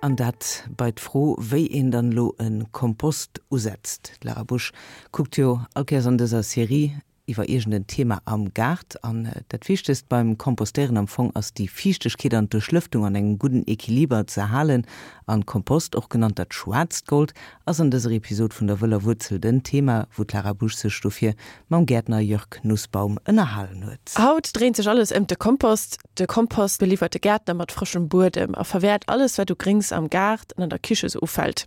An dat bei d'Fro, wéi een dann elo e Kompost usetzt. D'Lara Busch kuckt jo all Kéiers an dëser Serie iwwer iergend en Thema am Gaart. An dat Wichtegst beim Kompostéieren am Fong ass déi Fiichtegkeet an d'Duerchlëftung an engem gudden Equiliber ze halen. An Kompost, och genannt dat schwaarzt Gold, ass an dëser Episod vun der wëller Wuerzel den Thema, wou d'Lara Busch sech dofir mam Gäertner Jörg Nussbaum ënnerhalen huet. Haut dréint sech alles ëmt de Kompost. De Kompost beliwwert de Gäertner mat frëschem Buedem a verwäert alles wat u Gréngs am Gaart an an der Kiche sou ufält.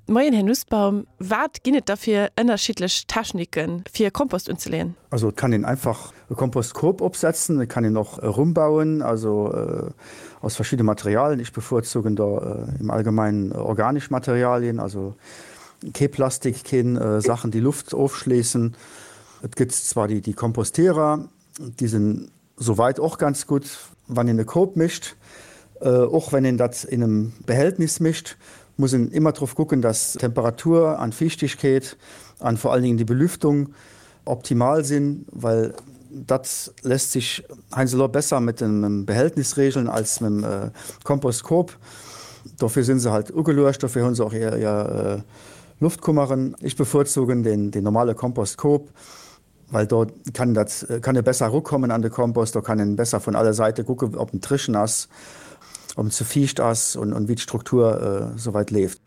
Moien Här Nussbaum, wat ginn et da fir ënnerschiddlech Techniken fir Kompost unzeleeën? Also et kann een einfach e Kompostkorb opsetzen, et kann een och e Rumm bauen, also aus verschiddene Materialien. Ech bevorzugen da im Allgemeinen organesch Materialien, also kee Plastik, keen Sachen déi Luft ofschléissen. Et gëtt zwar déi Kompostierer, déi sinn Souweit och ganz gutt, wann een e Koob mécht. Och wenn een dat in em Behältnis mécht, muss een immer drop kucken, dass Temperatur an Fiichtigkeet an vor allen Dingen déi Belüftung optimal sinn, well dat lässt sich heiansdo besser mit em Behältnis regeln als mit em Kompostkoob. Dofir sinn se halt ugeluecht, dofir hunn se och hir Luftkummeren. Ech bevorzugen den normale Kompostkoob. Well do kann dat kann e besser erukommen an de Kompost, do kann en besser vun alle Seite kucken, ob en dréchen ass, ob en ze fiicht ass und und wéi d'Struktur souweit leeft.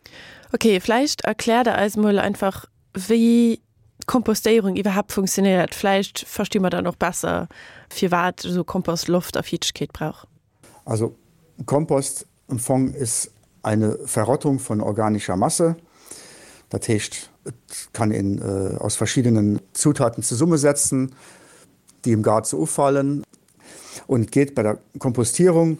Ok, vläicht erkläert der eis mol einfach wéi d'Kompostéierung iwwerhaapt funktionéiert. Vläicht versti mer dann och besser firwat esou Kompost Loft a Fiichtegkeet brauch. Also Kompost im Fong ist eine Verrottung von organischer Masse. Dat heescht, et kann een aus verschiddenen Zutaten zesummesetzen, déi im Gaart sou ufalen. Und et geet bei der Kompostierung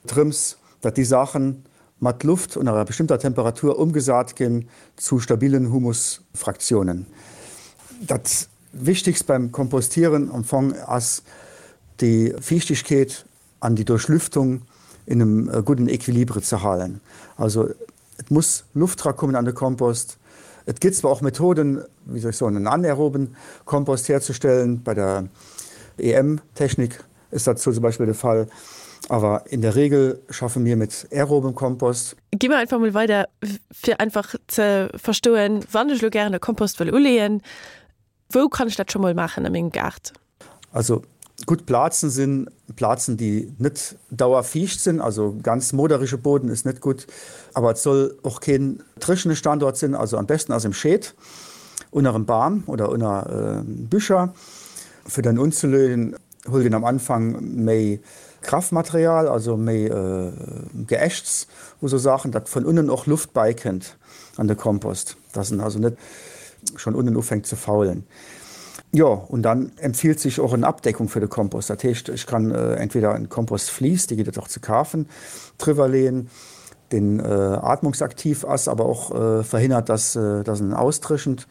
drëms, datt déi Saachen mat Luft und enger bestimmter Temperatur umgesat ginn zu stabilen Humusfraktionen. Dat Wichtigst beim Kompostieren am Fong ass déi Fiichtegkeet an déi Duerchlüftung in einem gudden Equilibre ze halen. Also et muss Luft drakommen an de Kompost. Et gëtt zwar och Methoden, wéi soll ech soen, en anaeroben Kompost herzustellen, bei der EM-Technik ist dat zum Beispill de Fall, awer in der Regel schaffe mir mit aerobem Kompost. Gi mer einfach mol weider, fir einfach ze verstoen, wann ech elo gären e Kompost wëll uleeën, wou kann ech dat scho mol maachen a mengem Gaart? Also gutt Plazen sinn Plazen déi net dauerfiicht sinn, also ganz moderege Boden ist net gutt, awer et soll och keen dréchene Standort sinn, also am besten ass im Scheed, ënner em Bam oder ënner Bücher. Fir dann unzelöen huelt een am Anfang méi Kraftmaterial, also méi Geäschts u sou Saachen, datt vun unnen och Luft bäikënnt an de Kompost, dass en also net schonn unnen ufänkt ze faulen. Jo, und dann empfiehlt sich och en Abdeckung fir de Kompost. Dat heescht, ech kann entweder en Kompostvlies, dee gëtt et och ze kafen, driwwer leeën, deen atmungsaktiv ass, awer och verhindert, dass dass en austréchent.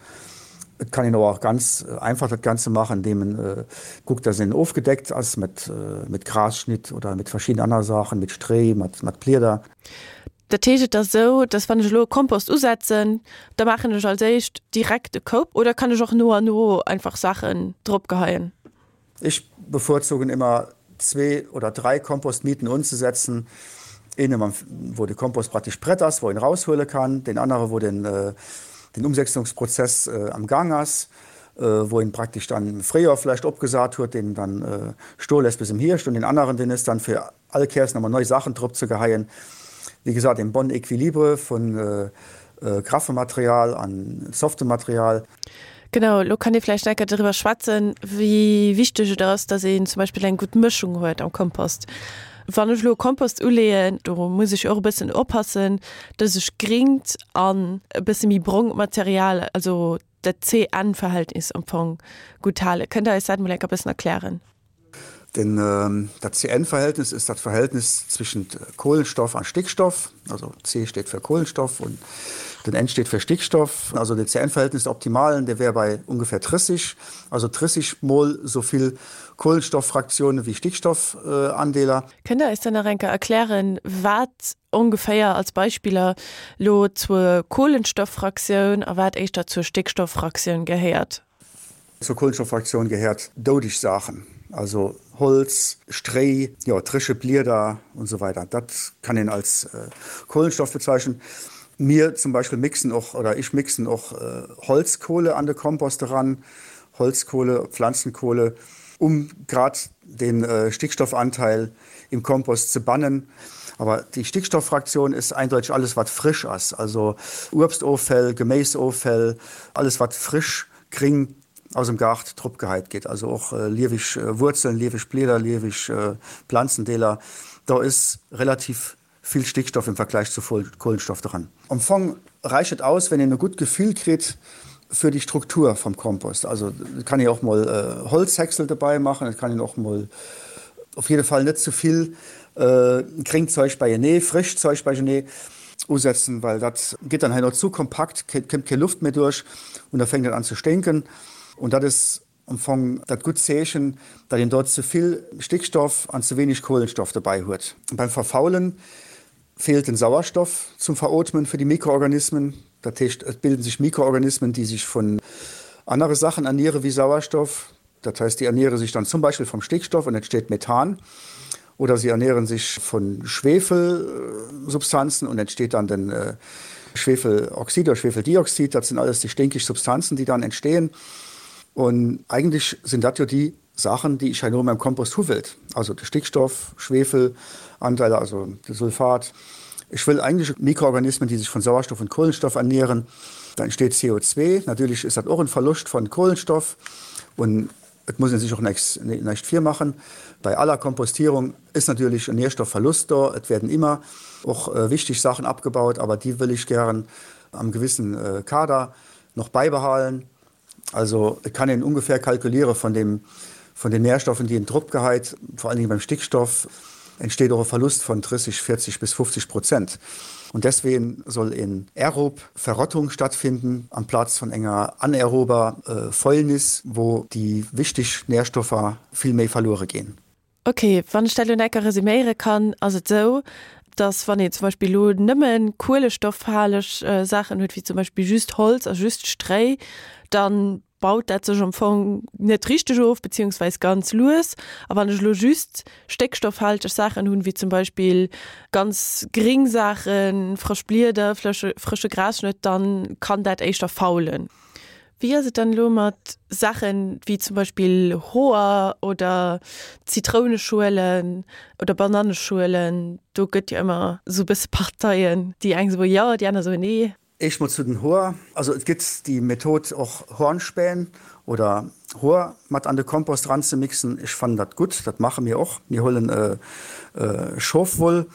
Et kann een awer och ganz einfach dat Ganze maachen, indeem en kuckt, dass en ofgedeckt ass mat mat Grasschnitt oder mat verschidden aner Saachen, mat Stréi, mat mat Blieder. Dat heescht, et ass esou, dass wann ech elo e Kompost usetzen, da maachen ech als éischt direkt e Koup oder kann ech och no an no einfach Saachen drop geheien? Ech bevorzugen immer zwee oder drei Kompostmieten unzesetzen, een wou de Kompost praktisch prett ass, wou een raushuele kann, deen anere wou den den Umsetzungsprozess am Gang ass, wou een praktisch dann im Fréijoer vläicht opgesat huet, deen dann stoe lässt bis im Hierscht und deen aneren deen ass dann fir all Kéiers nach mol nei Saachen drop ze geheien. Wéi gesat, een bon Equilibre vun graffem Material an softem Material. Genau, elo kann ee vläicht enker doriwwer schwätzen, wéi wichteg et ass, dass een zum Beispill eng gutt Mëschung huet am Kompost. Wann ech elo e Kompost uleeën, do muss ech jo och e bëssen oppassen, dass ech gringt an e bësse méi brongt Material, also dat C-N-Verhältnis am Fong gutt halen. Kënnt Der eis dat mol enker e bëssen erklären? Denn dat C-N-Verhältnis ist dat Verhältnis zwischen Kohlenstoff an Stickstoff, also C steht für Kohlenstoff und den N steht für Stickstoff. Also den C-N-Verhältnis optimalen, der wär bei ungefähr 30, also 30 mol so vill Kohlenstofffraktionen wie Stickstoffandeeler. Kënnt Der eis dann nach enker erklären, wat ongeféier als Beispiller lo zur Kohlenstofffraktioun a wat éischter zur Stickstofffraktioun gehéiert? Zur Kohlenstofffraktioun gehéiert doudeg Saachen. also Holz, Stréi, jo, dréche Blieder und so weiter. Dat kann een als Kohlenstoff bezeichnen. Mir zum Beispill mixen och, oder ech mixen och Holzkohle an de Kompost eran, Holzkohle, Pflanzenkohle, um grad den Stickstoffanteil im Kompost ze bannen. Aber déi Stickstofffraktion ist eindeutig alles wat frisch ass, also Uebstoffäll, Geméisoffäll, alles wat frisch, gring aus dem Gaart drop geheit gétt, also och lieweg Wuerzeln, lieweg Blieder, lieweg Planzendeeler, do is relativ vill Stickstoff im Vergleich zu Kohlenstoff dran. Am Fong reicht et aus, wenn een e gutt Gefill kritt fir déi Struktur vom Kompost. Also et kann een och mol Holzhäcksel dobei maachen, et kann een och mol op jidde Fall net ze vill gréngt Zeug beienee, frëscht Zeug beienee usetzen, well dat gëtt dann herno zu kompakt, kënnt keng Luft méi duerch und da fänkt et an ze sténken und dat is am Fong dat gutt Zeechen, datt een dort ze vill Stickstoff an ze wenig Kohlenstoff dobei huet. Beim Verfaulen feelt den Sauerstoff zum Verootmen fir déi Mikroorganismen. Dat heescht, et bilden sech Mikroorganismen, déi sech vun anere Sachen erniere wéi Sauerstoff. Dat heißt, déi erniere sich dann zum Beispill vom Stickstoff und entsteht Methan oder sie ernähren sich von Schwefelsubstanzen und entsteht dann den Schwefeloxid oder Schwefeldioxid. Dat sind alles déi stinkig Substanzen, déi dann entstehen. Und eigentlich sind dat jo déi Sachen, déi ech herno in meinem Kompost hu wëllt, also de Stickstoff, Schwefelanteile, also de Sulfat. Ech wëll eigentlich Mikroorganismen, déi sich von Sauerstoff und Kohlenstoff ernähren. Da entsteht CO2. Natürlich ist dat och en Verlust von Kohlenstoff und et muss een sech och näischt virmachen, bei aller Kompostierung ist natürlich en Nährstoffverlust do. Et werden immer och wichtig Sachen abgebaut, aber déi wëll ech gären am gewissen Kader noch beibehalen. Also et kann een ungefähr kalkuliere von dem, von den Nährstoffen, déi een drop geheit, vor allen Dingen beim Stickstoff entsteht och e Verlust von 30, 40 bis 50 Prozent. Und deswegen soll en aerob Verrottung stattfinden amplaz von enger anaerober Fäulnis, wou déi wichteg Nährstoffer vill méi verluere ginn. Ok, wann ech dat elo enker resuméiere kann, ass et esou, dass wann een zum Beispill elo nëmme kuelestoffhaleg Saachen huet, wéi zum Beispill just Holz a just Stréi, da baut dat sech am Fong net richteg of, beziehungsweis ganz lues. A wann ech elo just stéckstoffhalteg Saachen hunn, wéi zum Beispill ganz gring Saachen, frësch Blieder, frësche Grasschnëtt, dann kann dat éischter faulen. Wéi ass et dann elo mat Saachen wéi zum Beispill Hoer oder Zitrouneschuelen oder Bananneschuelen? Do gëtt jo ëmmer esou e bësse Parteien, déi eng soe jo, déi aner soe nee. Éischt mol zu den Hoer, also et gëtt déi Method och Hornspähn oder Hoer mat an de Kompost ranzemixen. Ech fannen dat gutt, dat maache mir och. Mir huelen Schofwoll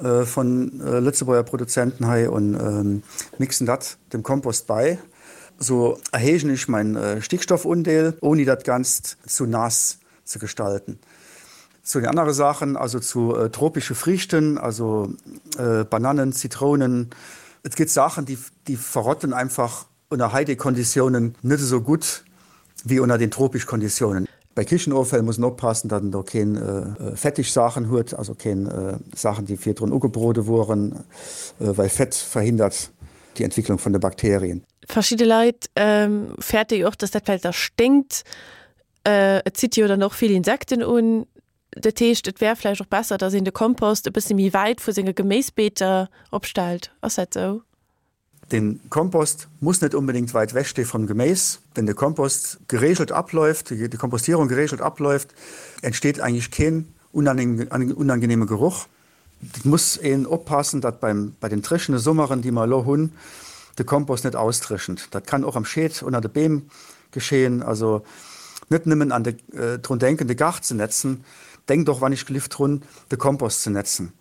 von Lëtzebuerger Produzenten hei und mixen dat dem Kompost bei. Sou erhéijen ech mein Stickstoffundeel, ouni dat Ganzt zu naass ze gestalten. Zu den anere Saachen, also zu tropische Friichten, also Banannen, Zitrounen, et gëtt Saachen, déi verrotten einfach ënner Heidekonditiounen net esou gutt wéi ënner den tropisch Konditiounen. Bei Kichenoffäll muss en oppassen, datt en do keen fettig Saachen huet, also keen Saachen, déi virdrun ugebrode woren, well Fett verhindert déi Entwicklung vun de Bakterien. Verschidde Leit fäerte jo och, datt dat vläicht da sténkt. Et zitt jo dann och vill Insekten un. Dat heescht, et wär vläicht och besser, datt een de Kompost e bësse méi wäit vu senge Geméisbeeter opstellt. Ass dat esou? Den Kompost muss net unbedingt weit weg steh vom Geméis. Wenn de Kompost geregelt abläuft, die Kompostierung geregelt abläuft, entsteht eigentlich keen unangenehme Geruch. Et muss een oppassen, datt beim bei den dréchene Summeren, déi mer elo hunn, de Kompost net ausdréchent. Dat kann och am Scheed ënner de Beem geschehen. Also net nëmmen an de drun denken, de Gaart ze netzen, denkt och wann ech gelift drun, de Kompost ze netzen.